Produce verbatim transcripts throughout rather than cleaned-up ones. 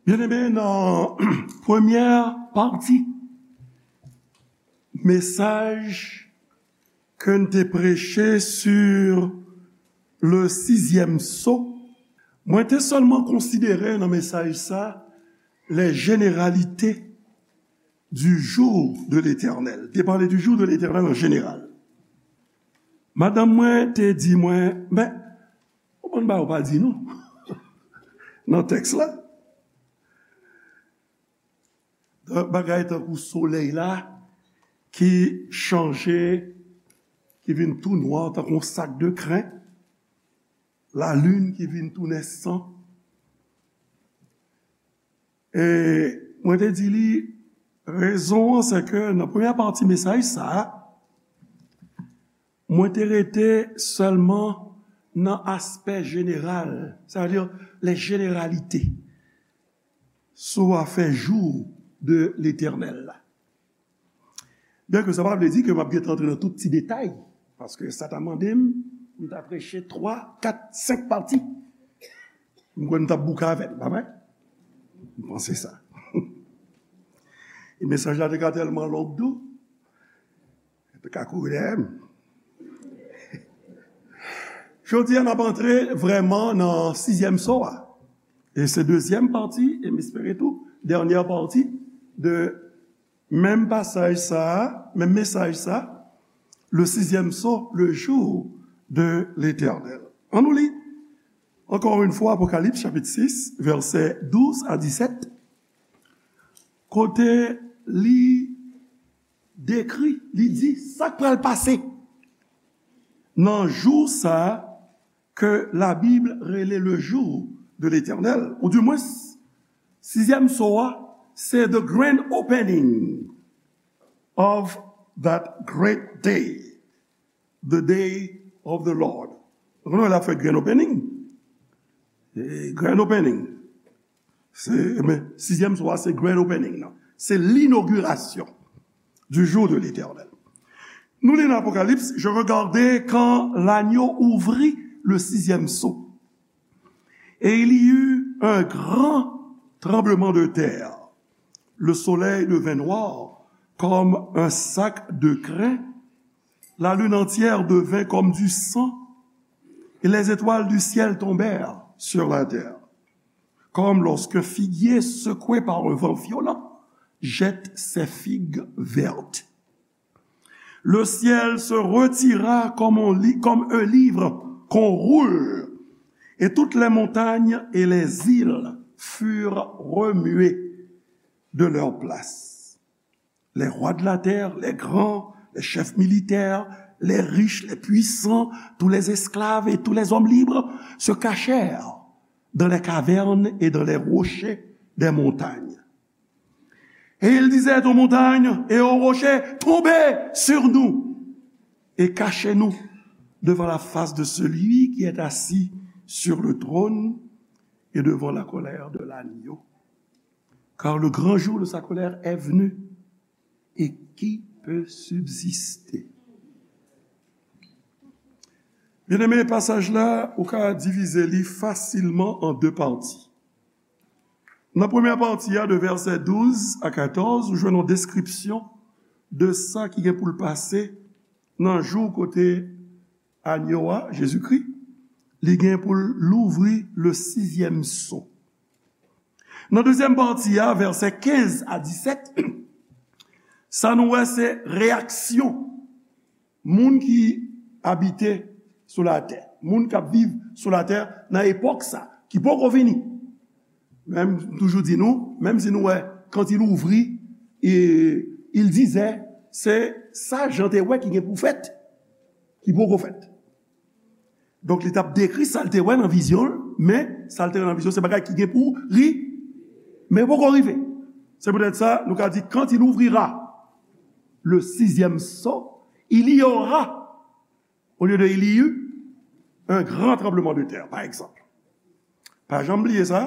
Byeneme, nan premyè pati mesaj ke n te preche sur le sizyèm so, mwen te sèlman konsidere nan mesaj sa les généralités du jour de l'Éternel. Te pale du jour de l'Éternel an jeneral. Madanm mwen te di mwen, men, ou konn bagay ou pa di nou nan tèks la. Bagay tankou solèy la ki chanje, ki vin tou nwa tankou yon sak de kren, lalin ki vin tounen san. E mwen te di li, rezon an se ke nan premyè pati mesaj sa a, mwen te rete sèlman nan aspè jeneral, sa vle di les généralités, sou afè jou de Letènèl la. Byen ke sa pa vle di ke m ap gentan antre nan tout ti detay, paske sa ta mande m pou m ta preche twa, kat, senk pati. M kwè m t ap bouke avè l, pa vre? M panse sa. E mesaj la te ka tèlman long tou, te ka kouri dèyè m. Jodi a, n ap antre vrèman nan sizyèm so a. E se dezyèm pati, e m espere tou, dènyè pati de menm pasaj sa a, menm mesaj sa, le sizyèm so, le jour de l'Éternel. Ann nou li, ankò yon fwa, Apokalips, chapit sis, vèsè douz a disèt, kote li dekri, li di sa k pral pase nan jou sa a ke Labib rele le jour de l'Éternel, ou dimwens, sizyèm so a, se the grand opening of that great day, the day of the Lord. Nou konnen lè y ap fè grand opening. E grand opening. Se, men, sizyèm so a, se grand opening nan. Se l'inauguration du jour de l'Éternel. Nou li nan Apokalips, je regardai quand l'agneau ouvrit le sixième sceau. Et il y eut un grand tremblement de terre. Le soleil devint noir comme un sac de crin. La lune entière devint comme du sang. Et les étoiles du ciel tombèrent sur la terre. Comme lorsqu'un figuier secoué par un vent violent jette ses figues vertes. Le ciel se retira comme un li-, comme un livre qu'on roule, et toutes les montagnes et les îles furent remuées de leur place. Les rois de la terre, les grands, les chefs militaires, les riches, les puissants, tous les esclaves et tous les hommes libres se cachèrent dans les cavernes et dans les rochers des montagnes. Et ils disaient aux montagnes et aux rochers, tombez sur nous et cachez-nous devant la face de celui qui est assis sur le trône et devant la colère de l'agneau. Car le grand jour de sa colère est venu, et qui peut subsister? Byeneme, pasaj la, ou ka divize li fasilman an de pati. Nan premyè pati a, de vèsè douz a katòz, ou jwenn yon deskripsyon de sa ki gen pou l pase nan jou kote Agno a, Jezikri, li gen pou l louvri le sizyèm so. Nan dezyèm pati a, vèsè kenz a disèt, sa nou wè se reyaksyon moun ki abite sou latè, moun k ap viv sou latè nan epòk sa, ki poko vini. Menm, m toujou di nou, menm si nou wè quand il ouvrit, e, il disait, se sa Jan te wè ki gen pou fèt, ki poko fèt. Donk, li t ap dekri sa l te wè nan vizyon l, men sa l te wè nan vizyon, se bagay ki gen pou ri-, men poko rive. Se poutèt sa, nou ka di, quand il ouvrira le sixième sceau, il y aura, au lieu de il y eut, un grand tremblement de terre, par exemple. Pa janm bliye sa,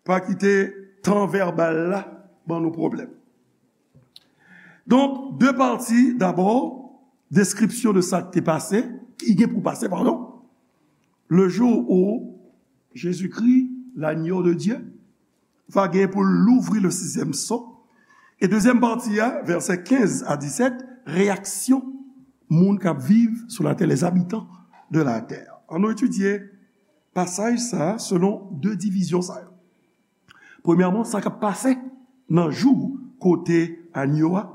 pa kite tan vèbal la ban nou pwoblèm. Donk, de pati, dabò, deskripsyon de sa ki te pase, ki gen pou pase, padon, le jour où Jésus-Christ, l'agneau de Dieu, va gen pou l louvri le sizyèm so. E dezyèm pati a, vèsè kenz a disèt, reyaksyon moun k ap viv sou latè, les habitants de la terre. Ann nou etidye pasaj sa a selon de divizyon sa yo. Premyèman, sa k ap pase nan jou kote anyo a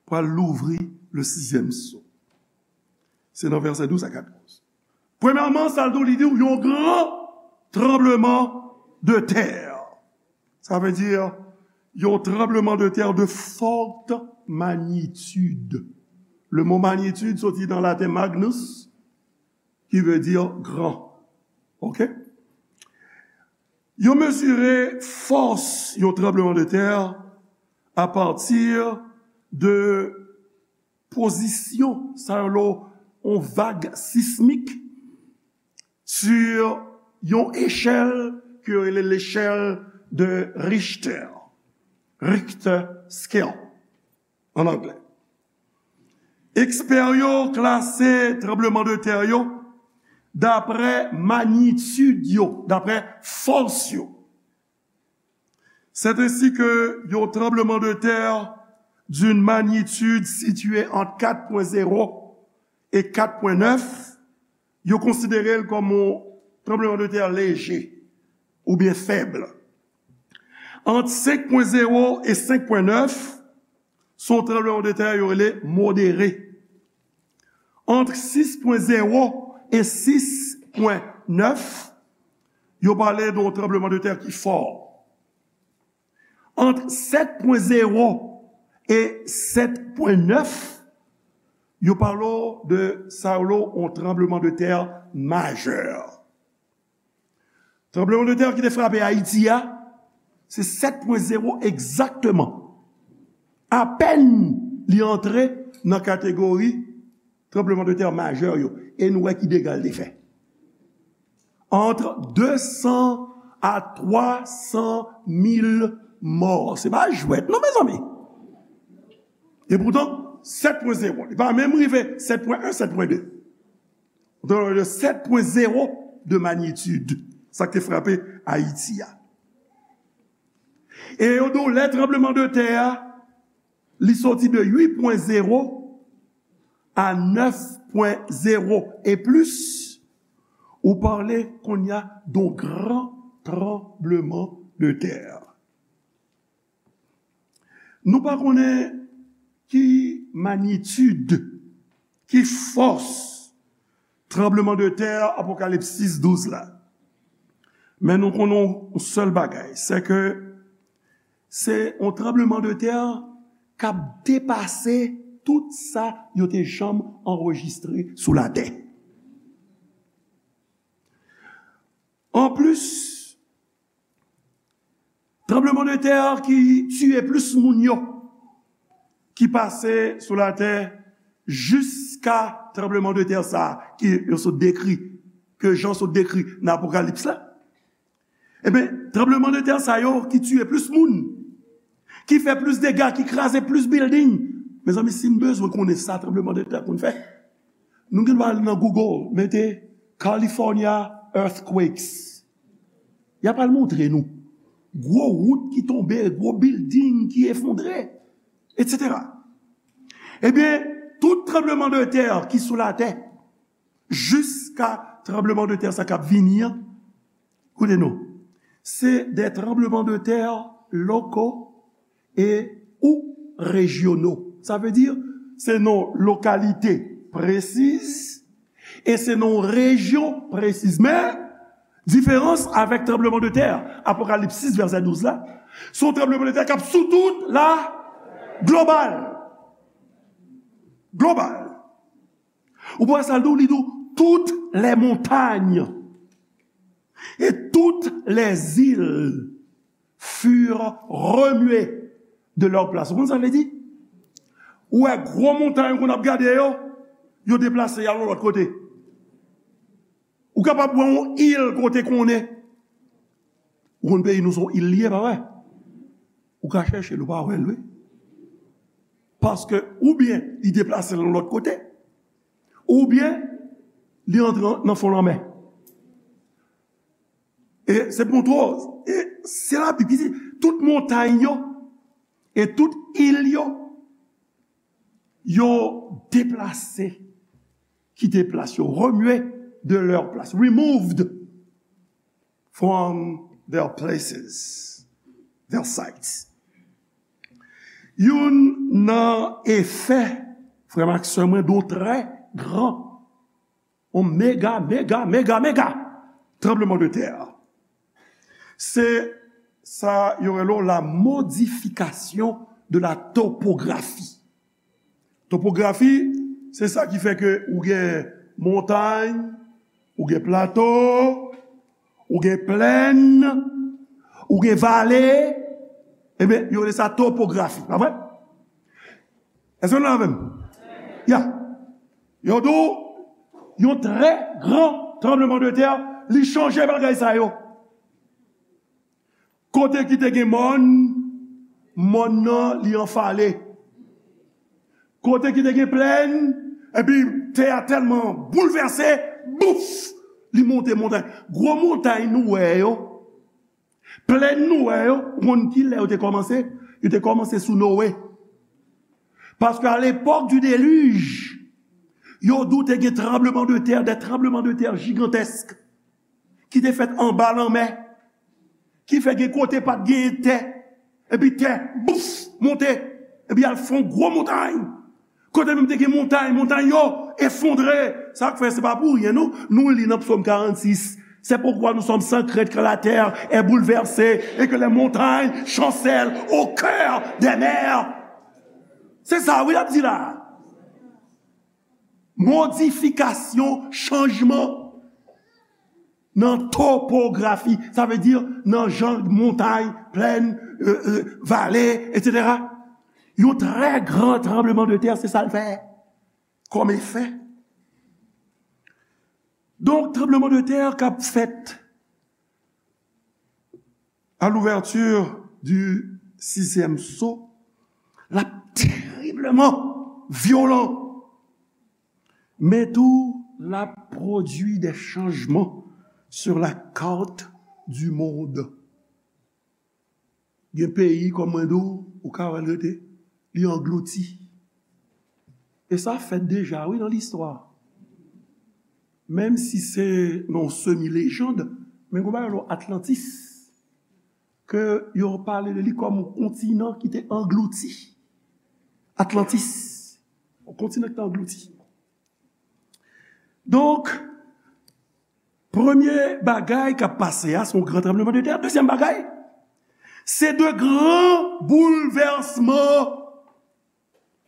pral louvri le sizyèm so. Se nan vèsè douz a katòz. Premyèman, sa l di w, li di w yon gran tranbleman de tè. Sa vle di yon tranbleman de tè de forte magnitude. Le mo magnitude soti nan laten magnus, ki vle di gran. Oke? Yo mezire fòs yon tranbleman de tè apati de pozisyon, sa yo rele yon vag sismik, sur yon echèl ke yo rele l'échelle de Richter, Richter scale, an anglè. Ekspè yo klase tranbleman de tè yo dapre magnitid yo, dapre fòs yo. C'est ainsi que yon tranbleman de tè d'une magnitude située entre quatre point zéro et quatre point neuf, yo konsidere l kòm yon tranbleman de tè leje oubyen fèb. Ant senk pwen zewo e senk pwen nèf, se yon tranbleman de tè yo rele modere. Ant sis pwen zewo e sis pwen nèf, yo pale de yon tranbleman de tè ki fò. Ant sèt pwen zewo e sèt pwen nèf, yo pale w de sa yo rele yon tranbleman de tè majè. Tranbleman de tè ki te frape Ayiti a, se sèt pwen zewo egzakteman. Apèn li antre nan kategori tranbleman de tè majè yo. E nou wè ki dega l te fè. Ant de san a twa san mil mò. Se pa jwèt, non, mezanmi. E poutan, sèt pwen zewo. Li pa menm rive sèt pwen en, sèt pwen de. Donk, de sèt pwen zewo de magnitude. Sa k te frape Ayiti a. E yo di w lè tranbleman de tè a, li soti de uit pwen zewo a nèf pwen zewo e plis, ou pale kounye a de yon gran tranbleman de tè. Nou pa konnen ki magnitid, ki fòs tranbleman de tè Apokalips sis douz la. Men nou konnen yon sèl bagay, se ke se yon tranbleman de tè k ap depase tout sa yo te janm anrejistre sou latè. Anplis, tranbleman de tè ki tiye plis moun yo, ki pase sou latè jiska tranbleman de tè sa a, ke yo sot dekri, ke Jan sot dekri nan Apokalips la. Ebyen, tranbleman de tè sa yo ki tiye plis moun, ki fè plis dega, ki kraze plis bilding. Mezanmi, si n bezwen konnen sa tranbleman de tè konn fè, nou gen dwa al nan Google, mete California earthquakes. Y ap al montre nou gwo wout ki tonbe, gwo bilding ki efondre, etsetera. Ebyen, tout tranbleman de tè ki sou latè, jiska tranbleman de tè sa k ap vini an, koute non, se de tranbleman de tè loko e ou rejyono. Sa vle di, se nan lokalite presiz e se nan rejyon presiz. Men, diferans avèk tranbleman de tè Apokalips sis vèsè douz la, se yon tranbleman de tè k ap sou tout la global. Global. Ou pa wè sa l di w, li di w, toutes les montagnes et toutes les îles furent remuées de leur place. Ou konn sa l vle di? Ou wè gwo montay ou konn ap gade yo, yo deplase y al yon lòt kote. Ou kapab wè yon il kote konnen. Ou konn peyi nou se yon il li ye, pa vre? Ou ka chèche l, ou pa wè l, wi. Paske oubyen li deplase l yon lòt kote, oubyen li antre nan fon lanmè. E se pou montre w, e Se Labib ki di, tout montay yo e tout il yo, yo deplase, kite plas yo, remye de leur place, removed from their places, their sites. Youn nan efè, frè m ak sè mwen, de yon trè gran, yon mega, mega, mega, mega tranbleman de tè, se sa yo rele la modification de la topographie. Topografi, se sa ki fè ke ou gen montay, ou gen plato, ou gen plèn, ou gen vale, ebyen, yo rele sa topografi, pa vre? Èske nou la avè m? Ya. Yo di w, yon trè gran tranbleman de tè, li chanje bagay sa yo. Kote ki te gen mòn, mòn nan li anfale. Kote ki te gen plèn, epi tè a tèlman boulvèse, bouf, li monte montay. Gwo montay nou wè yo, plèn nou wè yo, ou konn ki lè yo te kòmanse? Yo te kòmanse sou Noe. Paske à l'époque du déluge, yo di w te gen tranbleman de tè, des tremblements de terre gigantesques ki te fèt anba lanmè, ki fè gen kote pa t genyen tè, epi tè, bouf, monte, epi al fè yon gwo montay. Kote menm te gen montay, montay yo efondre. Sa k fè se pa pou ryen, non. Nou li nan Psaume quarante-six. C'est pourquoi nous sommes sans crainte quand la terre est bouleversée et que les montagnes chancellent au cœur des mers. Se sa, wi, l ap di la. Modifikasyon, chanjman nan topografi, sa vle di nan jan montay, plèn, euh, euh, vale, etsetera. Yon trè gran tranbleman de tè, se sa l fè kòm efè. Donk, tranbleman de tè k ap fèt à l'ouverture du sixième sceau, l ap teribleman vyolan. Men tou, l ap pwodui de chanjman sur la carte du monde. Gen peyi, kòm mwen di w, ou ka wè l rete, li anglouti. E sa fèt deja, wi, nan listwa. Menm si se nan yon semi lejand, men gen yon bagay rele Atlantis, ke yo pale de li kòm yon kontinan ki te anglouti. Atlantis, yon kontinan ki te anglouti. Donk, premye bagay k ap pase a, se yon gran tranbleman de tè. Dezyèm bagay, se de gran boulvèsman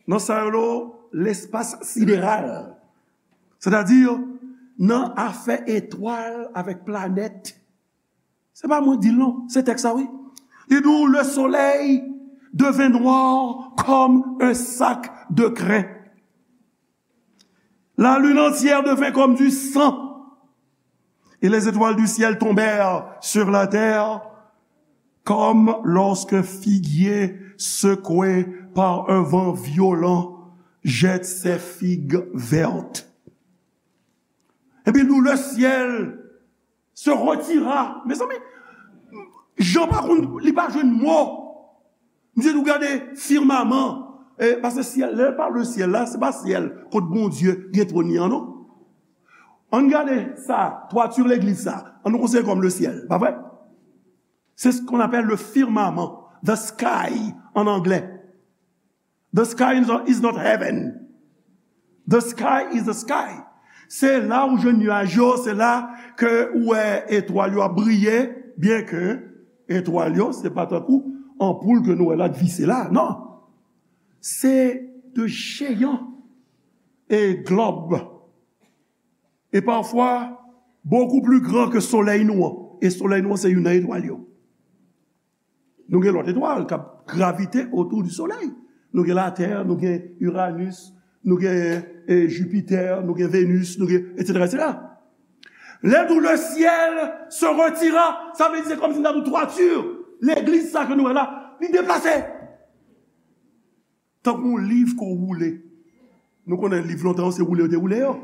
nan sa yo rele lespas sideral. Sètadi, nan afè etwal avèk planèt. Se pa mwen di l non, se tèks la, wi. Li di w, le soleil devint noir comme un sac de crin. La lune entière devint comme du sang. Et les étoiles du ciel tombèrent sur la terre comme lorsqu'un figuier secoué par un vent violent jette ses figues vertes. Epi nou, le ciel se retira. Mezanmi, Jan pa konn, li pa jwenn mo. Misye di w gade firmaman. E, paske syèl, lè yo pale de syèl la, se pa syèl kot Bondye gen twòn li an, non. Ann gade sa, twati legliz sa. Ann nou konsidere kòm le ciel, pa vre? C'est ce qu'on appelle le firmament, the sky en anglais. The sky is not, is not heaven. The sky is the sky. Se la ou jwenn nyaj yo, se la ke ou wè etwal yo ap briye, byen ke etwal yo, se pa tankou anpoul ke nou wè la k vise la, non. Se de jeyan e glòb. E pafwa, beaucoup plus grand que solèy nou an. E solèy nou an, se youn nan etwal yo. Nou gen lòt etwal k ap gravite autour du soleil. Nou gen Latè, nou gen Uranus, nou gen, e, Jupiter, nou gen Venus, nou gen, etsetera, etsetera. Lè nou le ciel se retira, sa vle di se kòmsi n ta di w twati legliz sa ke nou wè la, li deplase. Tankou yon liv ke w woule. Nou konnen liv lontan yo, se woule yo te woule yo.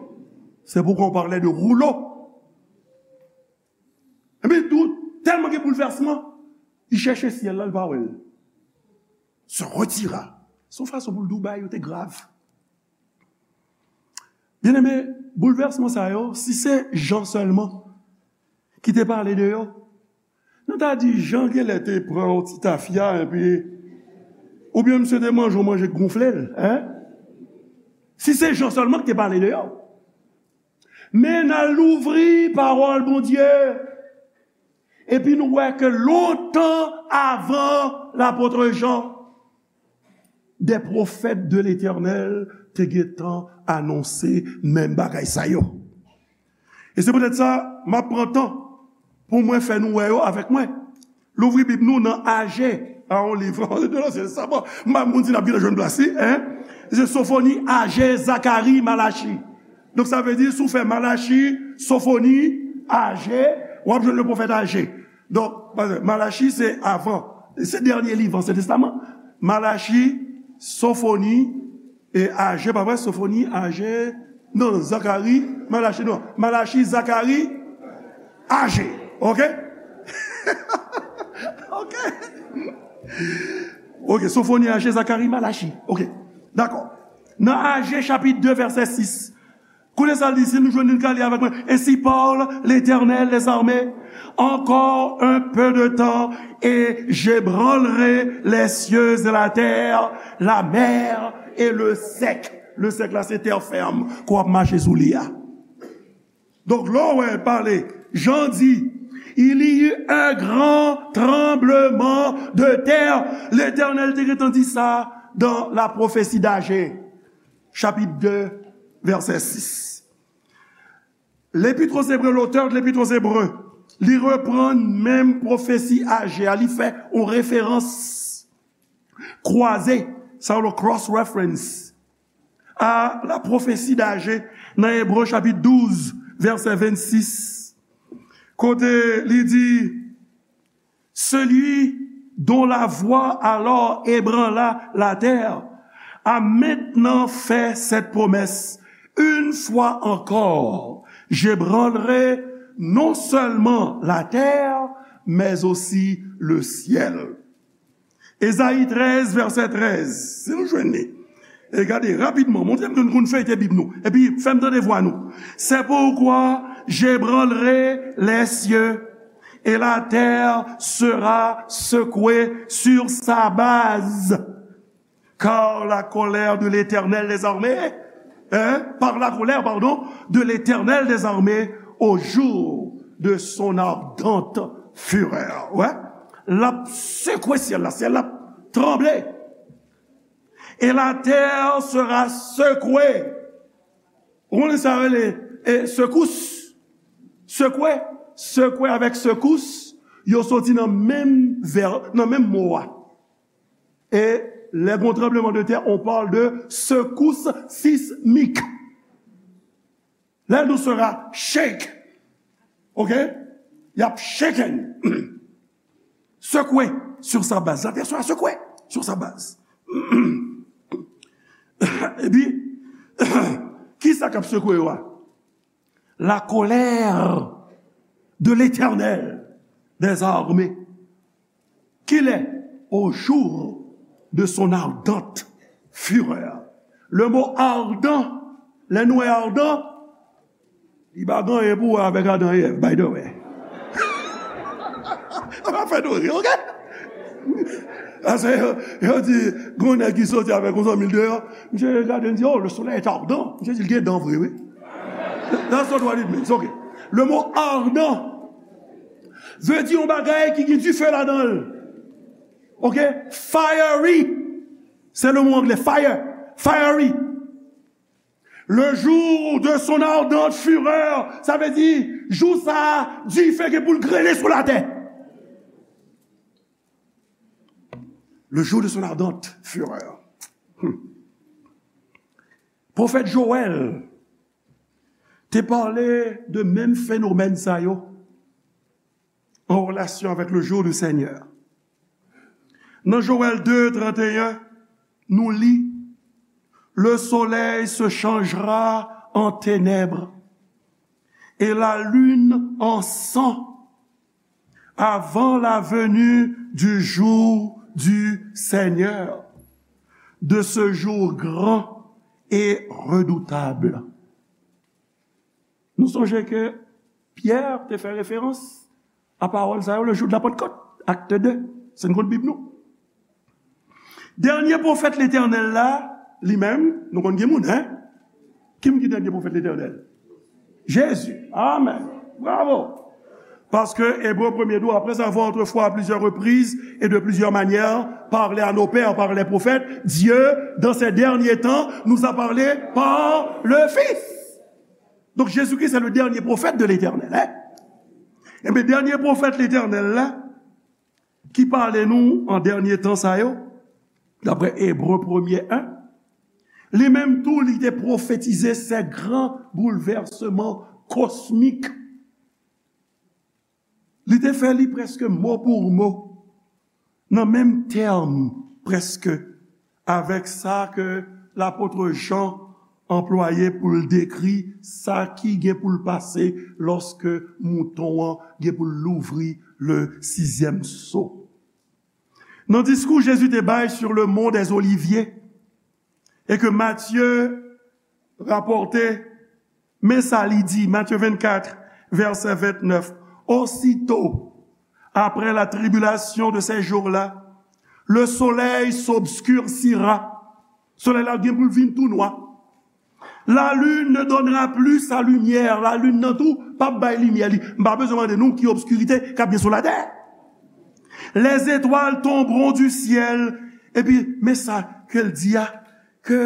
C'est pourquoi on parlait de rouleau. Epi tou, tèlman gen boulvèsman, Li chèche syèl la, li pa wè l. Se retira. Se yon fason pou l di w bagay yo te grav. Byeneme, boulvèsman sa yo, si se Jan sèlman ki te pale de yo, nou ta di Jan genlè te pran yon ti tafya, epi, oubyen misye te manje yon manje k gonfle l, en? Si se Jan sèlman ki te pale de yo. Men n al louvri pawòl Bondye, epi nou wè ke lontan avan lapot Jan, des prophètes de l'Éternel te gentan anonse menm bagay sa yo. E se poutèt sa, m ap pran tan pou mwen fè nou wè yo avèk mwen. Louvri Bib nou nan Aje, a yon liv, de Lansyen Testaman. M pa konn si n ap gentan jwenn plas li, en? Se Sofoni, Aje, Zakari, Malachi. Donk, sa vle di, si w fè Malachi, Sofoni, Aje, w ap jwenn le pwofèt Aje. Donk, Malachi, se avan. Se dènye liv Ansyen Testaman. Malachi, Sofoni, e Aje, pa vre? Sofoni, Aje, non, Zakari, Malachi, non. Malachi, Zakari, Aje. Oke? Oke. Oke, Sofoni, Aje, Zakari, Malachi. Oke. Dakò. Nan Aje, chapit de, vèsè sis. Koute sa l di, si nou jwenn li, n ka li avèk mwen. Ainsi parle l'Éternel des armées, encore un peu de temps, et j'ébranlerai les cieux et la terre, la mer et le sec. Le sec la, se tè fèm ke w ap mache sou li a. Donk, lè w wè pale, Jan di, il y eut un grand tremblement de terre. Letènèl te gentan di sa dans la prophétie d'Agé, chapit de, vèsè sis. L'Épître aux Hébreux, l'auteur de l'Épître aux Hébreux, li reprann menm pwofesi Aje a, li fè yon referans kwaze, sa yo rele cross reference, a la prophétie d'Agé nan Ebre chapit douz, vèsè vennsis, kote li di, celui dont la voix alors ébranla la terre a maintenant fait cette promesse, une fois encore, j'ébranlerai non seulement la terre, mais aussi le ciel. Ezayi trèz, vèsè trèz. Si nou jwenn li. E gade, rapidman, montre m ke nou konn feyte Bib nou. Epi, fè m tande vwa nou. C'est pourquoi j'ébranlerai les cieux, et la terre sera secouée sur sa base. Car la colère de l'Éternel des armées, hein, par la colère, pardon, de l'Éternel des armées au jour de son ardente fureur. Ouais. L ap sekwe syèl la, syèl la ap tranble. Et la terre sera secouée. Ou konnen sa yo rele, e, sekous. Sekwe, sekwe avèk sekous, yo soti nan menm vè, nan menm mo a. E lè gon tranbleman de tè, on parle de secousse sismique. Lè nou sera shake. Oke? Y ap shaken. Secoué sur sa base. La terre sera secouée sur sa base. Epi, kisa k ap sekwe yo a? La colère de l'Éternel des armées. Qu'il est au jour de son ardente fureur. Le mot ardent, lè nou wè ardent, li pa gen anyen pou wè avèk Adan e Èv, by the way. Sa va fè nou ri, oke? Paske yo, yo di, gon nèg ki soti avèk yon zanmi l deyò, misye gade, li di, oh, le soleil est ardent. Misye di, l gen dan vre, wi. That's not what it means, oke. Le mot ardent vle di yon bagay ki gen dife ladan l. Oke? Fiery. Se le mo angle, fire. Fiery. Le jour de son ardente fureur, sa vle di, jou sa a, dife gen pou l grele sou latè. Le jour de son ardente fureur. Hmm. Pwofèt Jowèl te pale de menm fenomèn sa yo an relasyon avèk le jour du Seigneur. Nan Jowèl de, trannteyen, nou li, le soleil se changera en ténèbres et la lune en sang. Avant la venue du jour du Seigneur, de ce jour grand et redoutable. Nou sonje ke Pyè te fè referans a pawòl sa yo le jou de la Pantkòt, Acte deux, se n konn Bib nou. Dènye pwofèt Letènèl la, li menm, nou konn gen moun, en? Ki moun ki dènye pwofèt Letènèl? Jezi. Amèn. Bravo. Paske Ebre premye di w, après avoir autrefois à plusieurs reprises et de plusieurs manières parlé à nos pères par les prophètes, Dieu, dans ces derniers temps, nous a parlé par le Fils. Donk, Jezikri se le dènye pwofèt de Letènèl, en? Enben, dènye pwofèt Letènèl la, ki pale nou an dènye tan sa yo, daprè Ebre premye en, li menm tou, li te pwofetize se gran boulvèsman kosmik. Li te fè li prèske mo pou mo, nan menm tèm prèske, avèk sa ke lapot Jan anplwaye pou l dekri sa ki gen pou l pase lòske mouton an gen pou l louvri le sizyèm so. Nan diskou Jezi te bay sur le mont des Oliviers, e ke Matye rapòte, men sa li di, Matye vennkat, vèsè vennèf, Aussitôt, après la tribulation de ces jours-là, le soleil s'obscurcira. Solèy la gen pou l vin tou nwa. La lune ne donnera plus sa lumière. La lune nan tou p ap bay limyè li. M pa bezwen mande nou ki obskirite k ap gen sou latè. Les étoiles tomberont du ciel. Epi, men sa ke l di a, ke,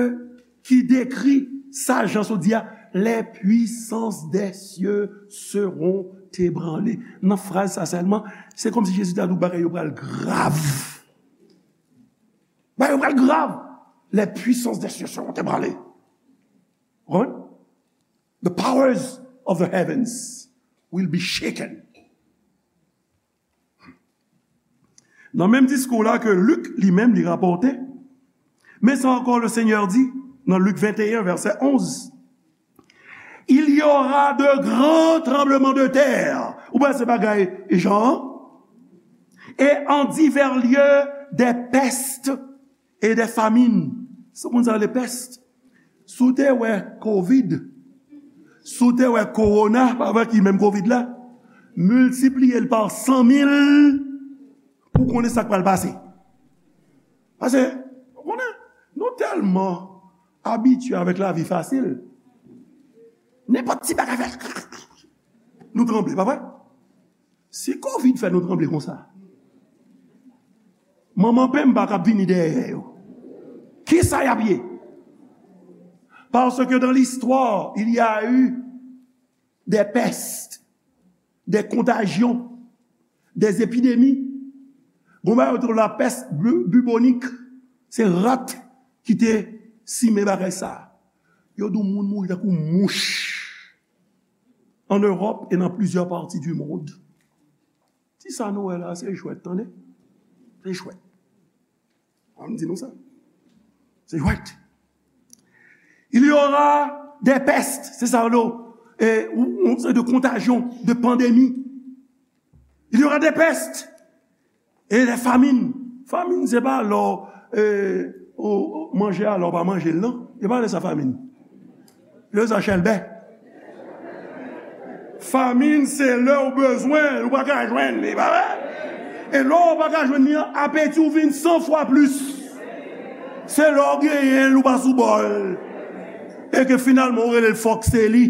ki dekri sa Jan sot di a, les puissances des cieux seront ébranlées. Nan fraz sa sèlman, se kòmsi Jezi ta di w bagay yo pral grav. Bagay yo pral grav. Les puissances des cieux seront ébranlées. Ou konprann? The powers of the heavens will be shaken. Nan menm diskou la ke Lik li menm li rapòte, men sa ankò le Senyè di nan Lik venteyen vèsè onz, Il y aura de grands tremblements de terre. Ou pa se bagay Jan? Et en divers lieux des pestes et des famines. Sa moun sa rele pès. Si w te wè kovid, si w te wè kowona, pa vre ki menm kovid la, miltipliye l pa san mil pou w konnen sa k pral pase. Paske, ou konnen, nou tèlman abitye avèk lavi fasil. Nenpòt ti bagay fè, nou tranble, pa vre? Si kovid fè nou tranble konsa, manman penmba k ap vini dèyè yo, kisa y ap ye? Parce que dans l'histoire, il y a eu des pestes, des contagions, des épidémies. Gon bagay yo te rele la pès bu-, bubonique, se rat ki te simen bagay sa. Yo di w moun mouri tankou mouch. En Europe et dans plusieurs parties du monde. Ti sa nou wè la, se jwèt, tande. Se jwèt. An m di nou sa. Se jwèt. Il y aura des pestes, se sa yo, e, ou, ou, se de kontajyon, de pandemi. Il y aura des pestes et des famines. Famin, se pa lè w, e, ou, ou manje a, lè w pa manje l, non. Se pa lè sa famin. Lè sa chèlbè. Famin, se lè w bezwen l, ou pa ka jwenn li, pa vre? E lè w pa ka jwenn li an, apeti w vin san fwa plis. Se lè w genyen l, ou pa sou bò l. E ke finalman, ou rele l fòk se li.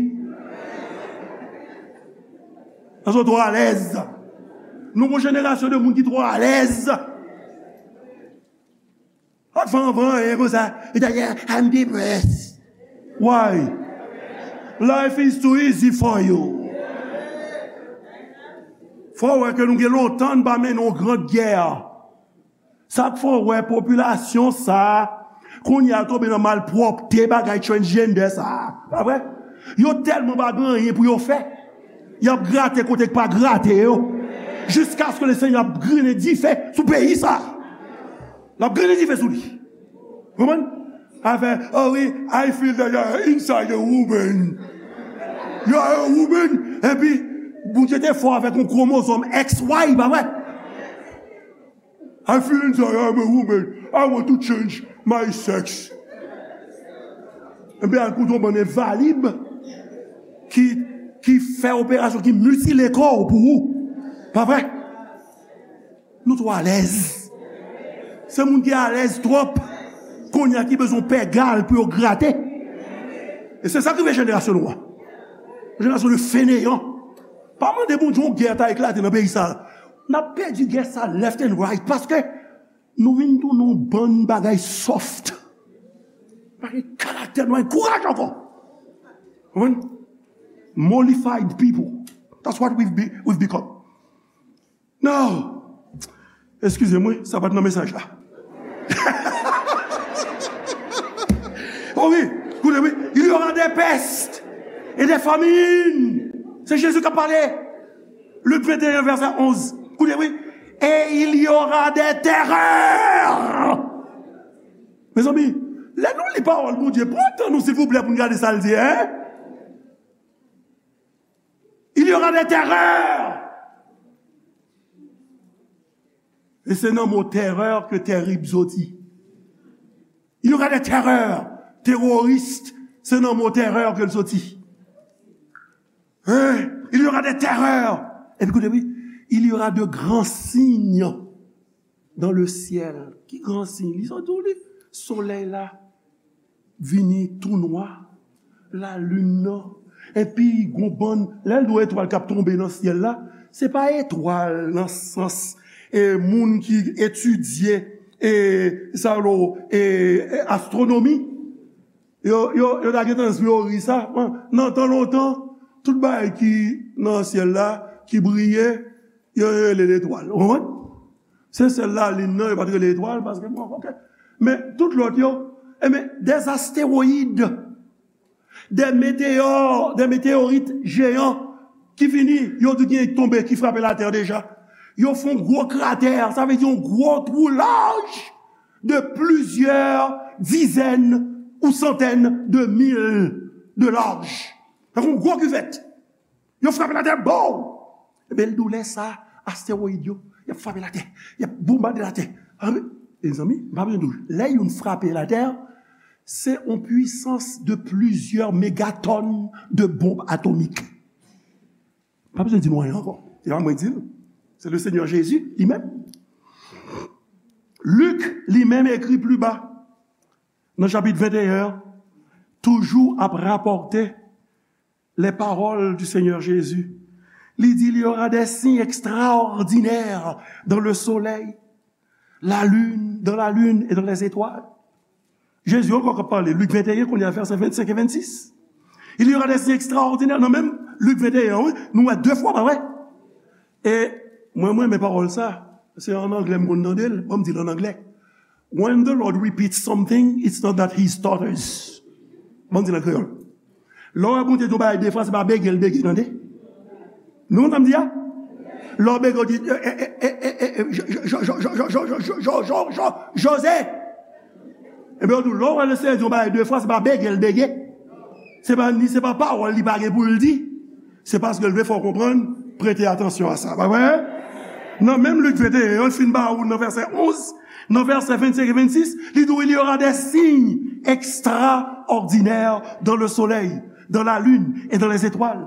Paske w twò alèz. Nou gon jenerasyon de moun ki twò alèz. Ak fè anvan, e konsa. E dayè, I'm depressed. Why? Life is too easy for you. Fò w wè ke nou gen lontan n pa mennen yon gran gè. Sa k fè w wè popilasyon sa a, kounye a tonbe nan malpwòpte bagay transgender sa a. Pa vre? Yo tèlman pa gen anyen pou yo fè. Y ap grate kote k pa grate yo. Jiskaske le Senyè ap grennen dife sou peyi sa a. L ap grennen dife sou li. Konprann? Afè, oh wi, I feel that you are inside a woman. You are a woman, epi Bondye te fè w avèk yon kwomozòm X Y, pa vre? I feel inside, I'm a woman. I want to change my sex. Ebyen, al koute yon bann envalib ki, ki fè operasyon, ki mitile kò w pou ou. Pa vre? Nou twò alèz. Se moun ki alèz twòp, kounye a ki bezwen pè gal pou yo grate. E se sa k rive jenerasyon nou an. Jenerasyon de feneyan. Pa mande Bondye yon gè ta eklate nan peyi sa. N ap pèdi gè sa left and right paske nou vin tounen yon bann bagay soft. Pa gen karaktè, nou pa gen kouraj ankò. Konprann? Mollified people. That's what we've, be, we've become. Non. Eskize m, wi, sa pa t nan mesaj la. Oh wi, koute, wi. Il y aura des pestes et des famines. Se Jezi k ap pale. Lik venteyen, vèsè onz. Koute, wi. Et il y aura des terreurs. Mezanmi, lè nou li pawòl Bondye, pran tan nou, silvouplè, pou n gade sa l di, hein? Il y aura des terreurs. E se nan mo terè ke tèrib soti. Il y aura des terreurs. Teworis, se nan mo terè ke l soti. Hein? Il y aura des terreurs. Epi koute, wi, il y aura de grands signes dans le ciel. Ki gran siy? Li sot di w li. Solèy la vini tou nwa. Lalin nan. Epi, gon bann, lè l di w etwal k ap tonbe nan syèl la, se pa etwal nan sans, e, moun ki etidye, e, sa yo, e, e, astwonomi. Yo, yo, yo ta gentan ri sa. Nan tan lontan, tout bagay ki nan syèl la, ki briye, yo, yo rele letwal. Ou konprann? Se sèl lalin nan, yo pa t rele etwal, paske, bon, ok. Men, tout lòt yo, e men, des astéroïdes, des météores, des météorites géants ki vini, yo di gen tonbe, ki frape latè deja. Yo fè yon gwo kratè, sa vle di yon gwo twou laj de plizyè dizèn ou santèn de mil de laj. Tankou yon gwo kivèt. Yo frape latè, bow! Ebyen, l di w lè sa, astèwoyid yo, y ap frape latè, y ap bonbade latè. Anben, mezanmi, m pa bezwen di w, lè youn frape latè, se yon pwisans de plizyè megatòn de bonb atomik. Pa bezwen di nou anyen ankò. Se pa mwen di l. Se le Senyè Jezi li menm. Lik li menm ekri pli ba, nan chapit venteyen an, toujou ap rapòte les paroles du Seigneur Jésus. Li di, il y aura des signes extraordinaires dans le soleil, la lune, dans la lune et dans les étoiles. Jezi ankò k ap pale, Lik venteyen, kounye a, vèsè vennsenk e vennsis. Il y aura des signes extraordinaires. Nan menm Lik venteyen, wi, nou wè de fwa, pa vre? E mwen, mwen renmen pawòl sa. Se an anglè m konn tande l. Ban m di l an anglè. When the Lord repeats something, it's not that he stutters. Ban m di l an kreyòl. Lè w wè Bondye di yon bagay de fwa, se pa bege l bege, tande. Nou konn sa m di a? Lè w bege, w di, eh, eh, eh, eh, eh, eh, Jo-, Jo-, Jo-, Jo-, Jo-, Jo-, Jo-, Jo-, Jo-, Jo-, Jose. Ebyen, w di, lè w wè Lesenyè di yon bagay de fwa, se pa bege l bege. Se pa ni, se pa pawòl li pa gen pou l di. Se paske l vle fè w konprann, prete atansyon a sa. Pa vre? Nan menm Lik venteyen an, l fin ba ou nan vèsè onz, nan vèsè vennsenk e vennsis, li di w, il y aura des signes extraordinaires dans le soleil, dans la lune et dans les étoiles.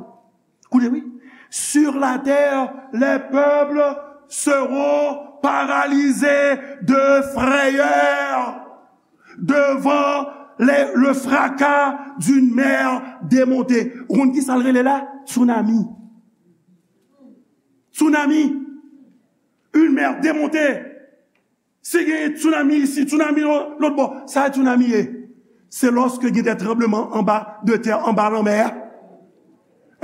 Koute, wi. Sur la terre, les peuples seront paralysés de frayeur devant les, le fracas d'une mer démontée. Ou konn ki sa l rele la? Tsunami. Tsunami. Une mer démontée. Si gen tsunami isi, tsunami lò-, lòt bò, sa tsunami ye? Se lòske gen de tranbleman anba de tè, anba lanmè a.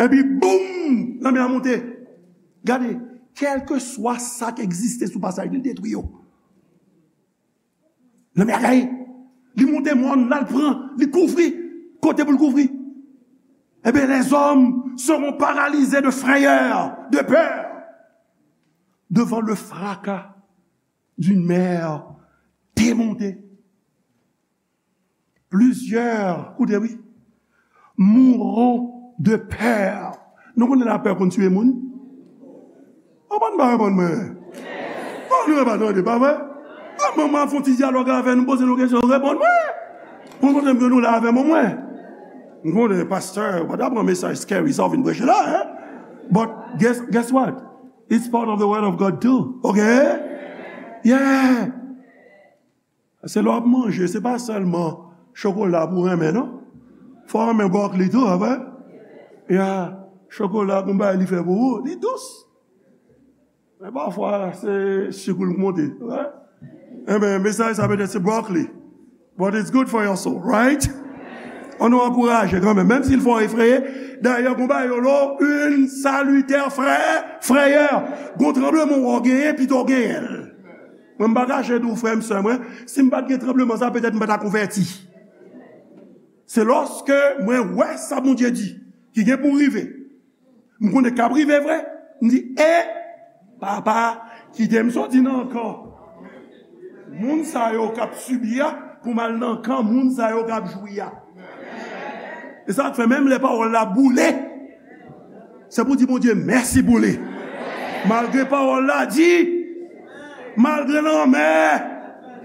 Epi, boum! Lanmè a monte. Gade, kèlkeswa sa k egziste sou pasaj, li detwi yo. Lanmè a gaye. Li monte mòn, l al pran, li kouvri kote pou l kouvri. Ebyen, les hommes seront paralysés de frayeur, de peur, devant le fracas d'une mer démontée. Plusieurs, koute, wi, mourront de peur. Nou konnen lapè konn tiye moun. Konprann pa reponn mwen. Bon, nou pa tande, pa vre? Kòman mwen ap fè yon ti dyalòg avè nou, poze nou kesyon, reponn mwen. Pou montre m ke nou la avè mwen, mwen. M konnen, pastè, ou pa ta pran mesaj scary sa w vin preche la, hein? But guess, guess what? It's part of the word of God too. Ok? Yeah. Se lè w ap manje, se pa sèlman chokola pou w renmen, non. Fò w renmen brokoli tou, apre. Ya, chokola, gon bagay li fè pou ou, li dous. Men pafwa, se sik ou l monte, right? Enben, mesaj sa petèt se brokoli. But it's good for your soul, right? Ann nou ankouraje kanmenm, menm si l fè w efreye. Dayè, gon bagay yo lo, une salutaire frayeur, frayeur. Gon tranbleman w genyen, pito w genyen l. Mwen, m pa kache di w, frè m, sè mwen, si m pa t gen tranbleman sa, petèt m pa ta konvèti. Se lòske mwen wè sa Bondye di, ki gen pou rive. M konnen k ap rive vre. M di, e, papa, kite m soti nan kan moun sa yo k ap sibi a, pou m al nan kan moun sa yo k ap jwi a. E sa k fè menm lè pawòl la boule, se pou di Bondye mèsi pou li. Malgre pawòl la di, malgre lanmè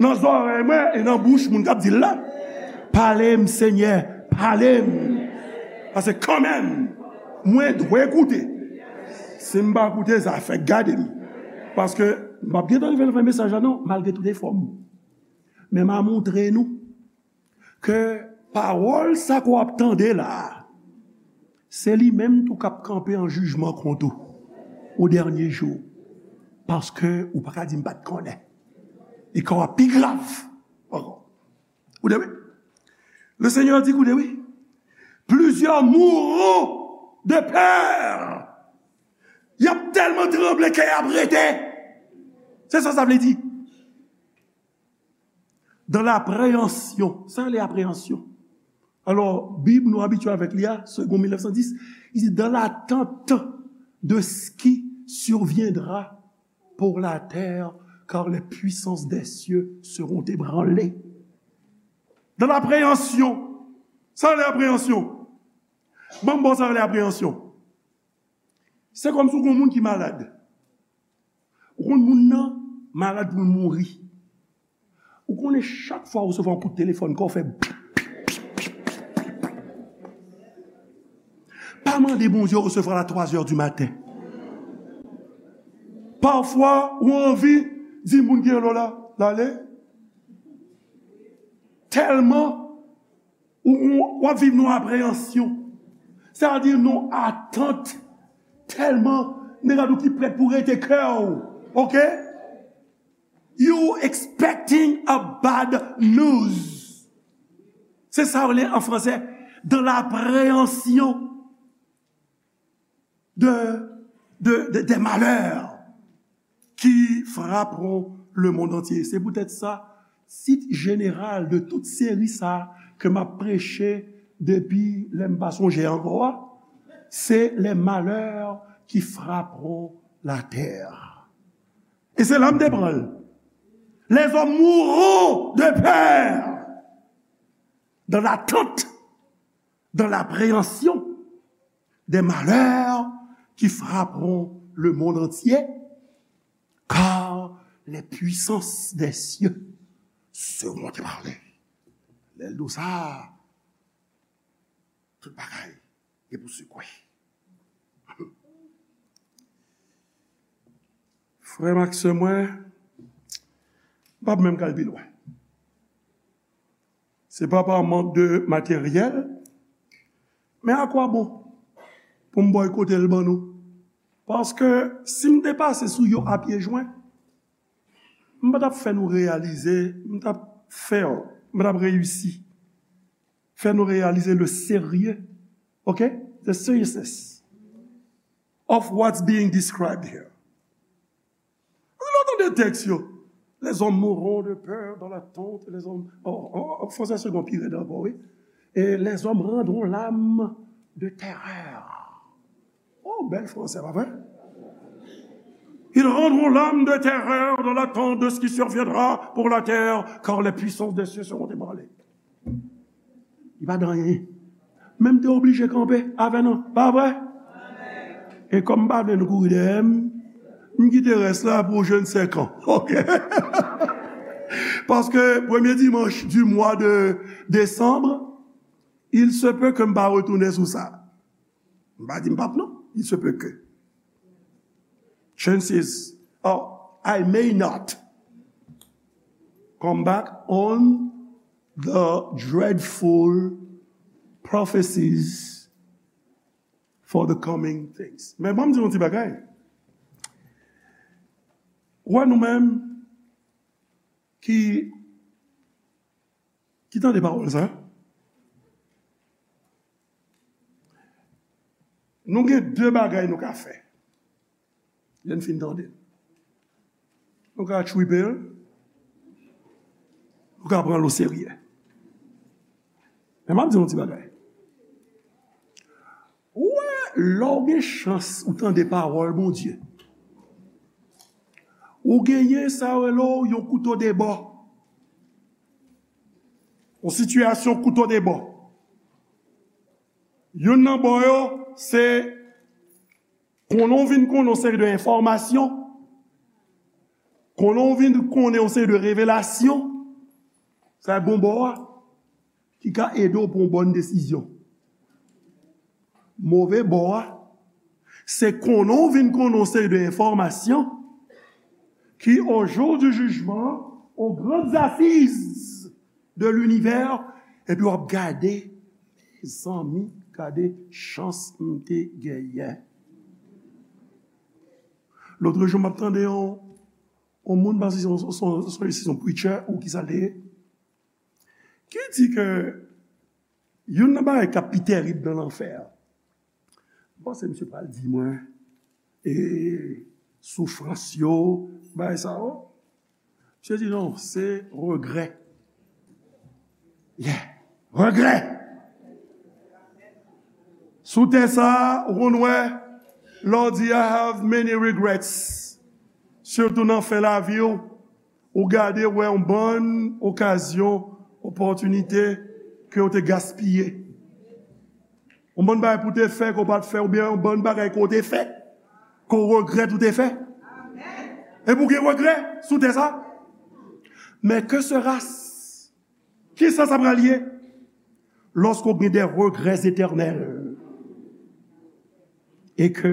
nan zòrèy mwen e nan bouch moun k ap di l la, pale m, Senyè, pale m. Paske kanmenm, mwen dwe koute. Si m pa koute, sa fèk gade m. Paske m p ap gentan rive nan fen mesaj la non, malgre tout efò m. Men m a montre nou ke pawòl sa ke w ap tande la a, se li menm tou k ap kanpe an jijman kont ou o dènye jou. Paske ou pa ka di m pa t konnen. E ka w ap pi grav ankò. Koute wi. Le Seigneur di, koute wi. Plusieurs mourront de peur. Y ap tèlman tranble, kè y ap rete. Se sa sa vle di. Dans l'appréhension. Sa rele apreyansyon. Alò, Bib nou abitye avèk li a, Segond mil nèf san dis, li di, dans l'attente de ce qui surviendra pour la terre, car les puissances des cieux seront ébranlées. Dans l'appréhension. Sa rele apreyansyon. Ban m ba w sa rele apreyansyon. Se kòmsi w gon moun ki malad. Ou konn moun nan malad pou l mouri. Ou konnen chak fwa ou resevwa yon kout telefòn, kò w fè. Pa mande Bondye resevwa l a twa zè di maten. Pafwa, ou anvi di moun ki rele w la, l ale. Tèlman ou, ou, w ap viv nan apreyansyon. Sa vle di nan atant. Tèlman, men gade ou ki prèt pou rete kè w. Ok? You expecting a bad news. Se sa yo rele an fransè, dans l'appréhension de, de, de, des malheurs qui frapperont le monde entier. Se poutèt sa, tit jeneral de tout seri sa ke m ap preche depi lè m pa sonje ankò a, se les malheurs qui frapperont la terre. E se la m te pran l. Les hommes mourront de peur, dans l'attente, dans l'appréhension des malheurs qui frapperont le monde entier, car les puissances des cieux seront ébranlées. Lè l di w sa, tout bagay gen pou sekwe. Frè m ak sè mwen, m p ap menm ka al pi lwen. Se pa pa mank de materyèl, men a kwa bon pou m bòykote l ban nou? Paske si m te pase sou yo a pye jwen, m pa t ap fè nou reyalize, m t ap fè, m pa t ap reyisi fè nou reyalize le sérieux, ok? The seriousness of what's being described here. Lè w tande tèks yo, les hommes mourront de peur dans l'attente, les hommes, oh, oh, oh, fransè se gon pi rèd ankò, wi. Et les hommes rendront l'âme de terreur. Oh, bèl fransè, pa vre? Ils rendront l'âme de terreur dans l'attente de ce qui surviendra pour la terre, car les puissances des cieux seront ébranlées. Li pa di anyen. Men m te oblije kanpe avè nou, pa vre? E kòm m pa vle nou kouri dèyè m, M kite rès la pou je ne sais quand. Ok. Paske premye dimanch du mois de décembre, il se peut que m pa retounen sou sa. M pa di m p ap non. Il se peut que. Chances are I may not come back on the dreadful prophecies for the coming things. Men ban m di yon ti bagay. Ou wè nou menm ki, ki tande pawòl sa, nou gen de bagay nou ka fè. Lè n fin tande l. Nou ka tchwipe l, nou ka pran l oserye. Men m ap di yon ti bagay. Ou wè, lè w gen chans ou tande pawòl Bondye, ou genyen sa yo rele w yon kouto de bò. Yon sitiyasyon kouto de bò. Youn nan bò yo, se konnen w vin konnen yon seri de enfòmasyon, konnen w vin konnen yon seri de revelasyon, sa e bon bò a, ki ka ede w pran yon bòn desizyon. Move bò a, se konnen w vin konnen yon seri de enfòmasyon ki, au jour du jugement, aux grandes assises de l'univers, epi w ap gade, mezanmi, gade chans m te genyen. Lòt jou, m ap tande yon, yon moun, pa si se yon, se yon, se yon preacher ou ki sa l te ye, ki di ke youn nan bagay k ap pi tèrib nan lanfè a. M panse misye pral di mwen, e, soufrans yo, bagay sa yo. Misye di non, se regrè. Yeah, regrè. Sou tè sa, ou konn wè, lè w di I have many regrets, sitou nan fen lavi w, ou gade wè yon bann okazyon, opòtinite ke w te gaspiye. Yon bann bagay pou w te fè ke w pa t fè, oubyen yon bann bagay ke w te fè ke w regrèt ou te fè. Epi w gen regrè sou tè sa. Men que sera-ce? Kisa sa pral ye? Lòske w gen de regrè etènèl e ke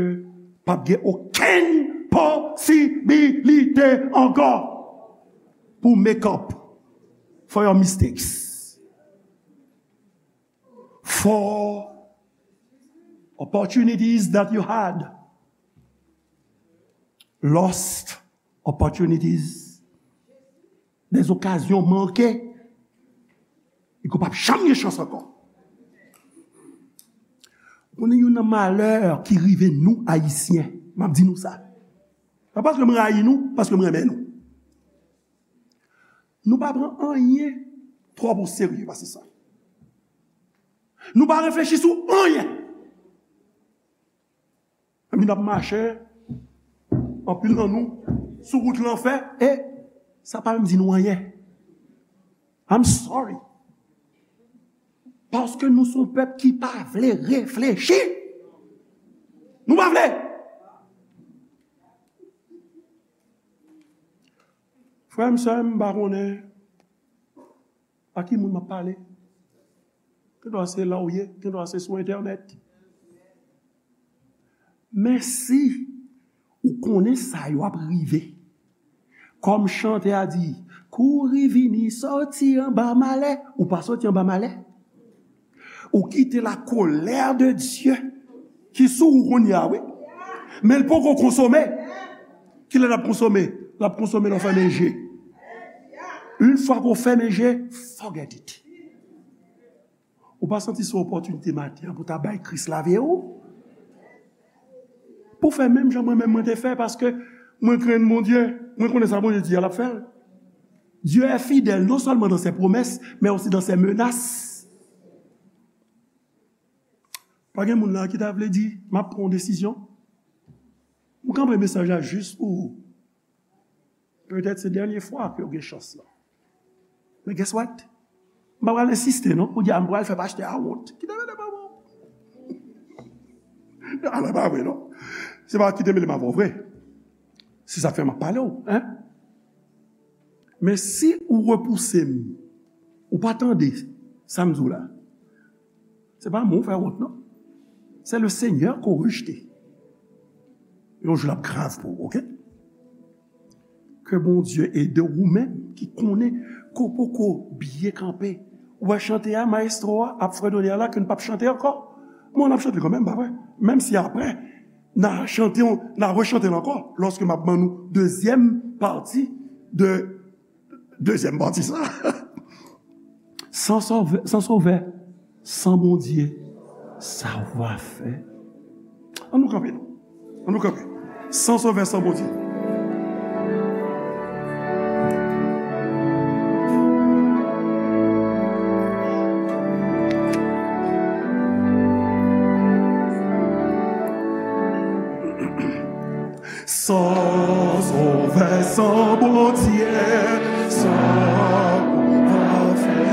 p ap gen okenn posibilite ankò pou make up for your mistakes, for opportunities that you had, lost opportunities, des occasions manquées, e ke w p ap janm gen chans ankò. Ou konnen youn nan malè ki rive nou Ayisyen, m ap di nou sa. Pa paske m rayi nou, paske m renmen nou. Nou pa pran anyen twòp oserye pase sa. Nou pa reflechi sou anyen. Epi n ap mache, anpil nan nou, sou wout lanfè, e sa pa menm di nou anyen. I'm sorry. Paske nou se yon pèp ki pa vle reflechi. Nou pa vle. Frè m, sè m, m pa konnen a ki moun m ap pale. Gendwa se la w ye, gendwa se sou entènèt. Men si ou konnen sa yo ap rive, kòm chantè a di, kouri vini, sòti anba malè, ou pa sòti anba malè. Ou kite la colère de Dieu ki sou ou kounye a, wi. Men l poko konsome. Kilè l ap konsome? L ap konsome lè w fèmen je. Yon fwa ke w fèmen je, forget it. Ou pa santi se opòtinite maten an pou ta bay Kris lavi w? Pou fè menm jan mwen menm mwen te fè, paske mwen krenn Bondye, mwen konnen sa Bondye di a, l ap fè l. Dieu est fidèle, non seulement dans ses promesses, mais aussi dans ses menaces. Pa gen moun la ki ta vle di, m ap pran yon desizyon. M kanpe mesaj la jis pou ou. Petèt se dènye fwa ke w gen chans lan. Men guess what? M pa pral ensiste non, pou di a m pral fè pastè a wont. Kite mele m avè w. Ala pa vre non. Se pa kite mele m avè w vre. Se sa k fè m ap pale w, en. Men si ou repouse m, ou pa tande sa m di w la, se pa mwen w fè wont, non. Se le Senyè ke w rejte. Yon jou l ap grav pou ou, oke? Ke Bondye ede w, ou menm ki konnen ke w poko byen kanpe. Ou wè chante a, mayestwo a ap fredone a la, ke n p ap chante ankò. Bon, n ap chante kanmenm, pa vre? Menm si apre, n a chante, n a rechante l ankò, lòske m ap ban nou dezyèm pati de, dezyèm pati sa. San sovè, san sovè, san Bondye, sa w va fè? An nou kanpe, non. An nou kanpe. San sovè, san Bondye. San sovè, san Bondye, sa ou va fè?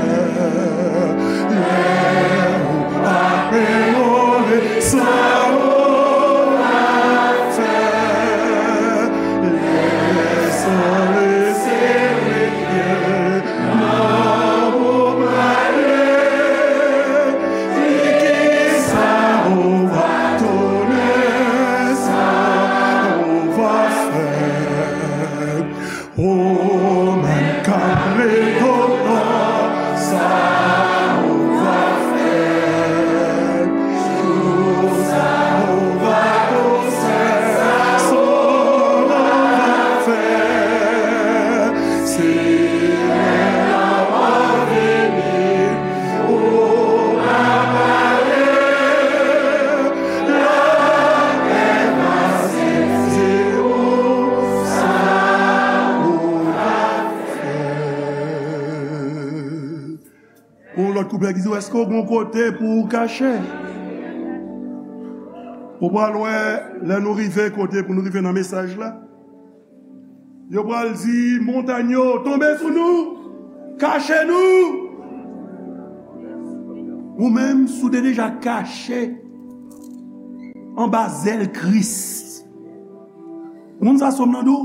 Lè ou pa peyore, sa ou va fè? Lè san lese rete, nan ou prale, di kisa ou va tounen, sa ou va fè. Ou menm k ap rekontan, sa ou va fè. Jou sa ou va konsa, sa ou va fè. Senyè a va vini, ou va pale, lapè va sezi ou, sa ou va fè. Pou yon lòt kouplè ki di, èske w gen yon kote pou w kache? Ou pral wè, lè nou rive kote pou nou rive nan mesaj la, yo pral di, montany yo, tonbe sou nou, kache nou. Ou menm, si w te deja kache anba zèl Kris, moun sa sòm nan di w,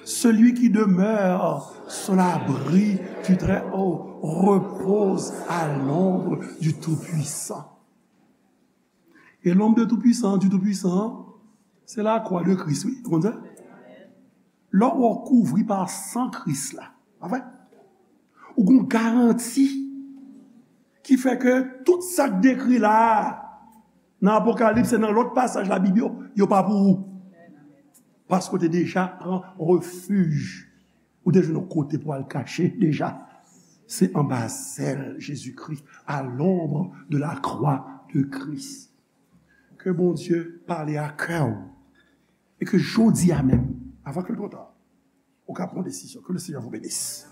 celui qui demeure sous l'abri du Très-Haut repose à l'ombre du Tout-Puissant. E l'ombre de Tout-Puissant, du Tout-Puissant, se lakwa de Kris, wi. Ou konn sa? Lè w kouvri pa san Kris la, pa vre? Ou gen yon garanti ki fè ke tout sa k dekri la a, nan Apokalips e nan lòt pasaj Labib yo, yo pa pou ou. Paske w te deja pran refij. Ou te jwenn yon kote pou al kache deja. Se anba zèl Jezikri, à l'ombre de la croix de Christ. Ke Bondye pale a kè w. E ke jodi a menm, avan ke l twò ta, ou ka pran desizyon. Que le Seigneur vous bénisse.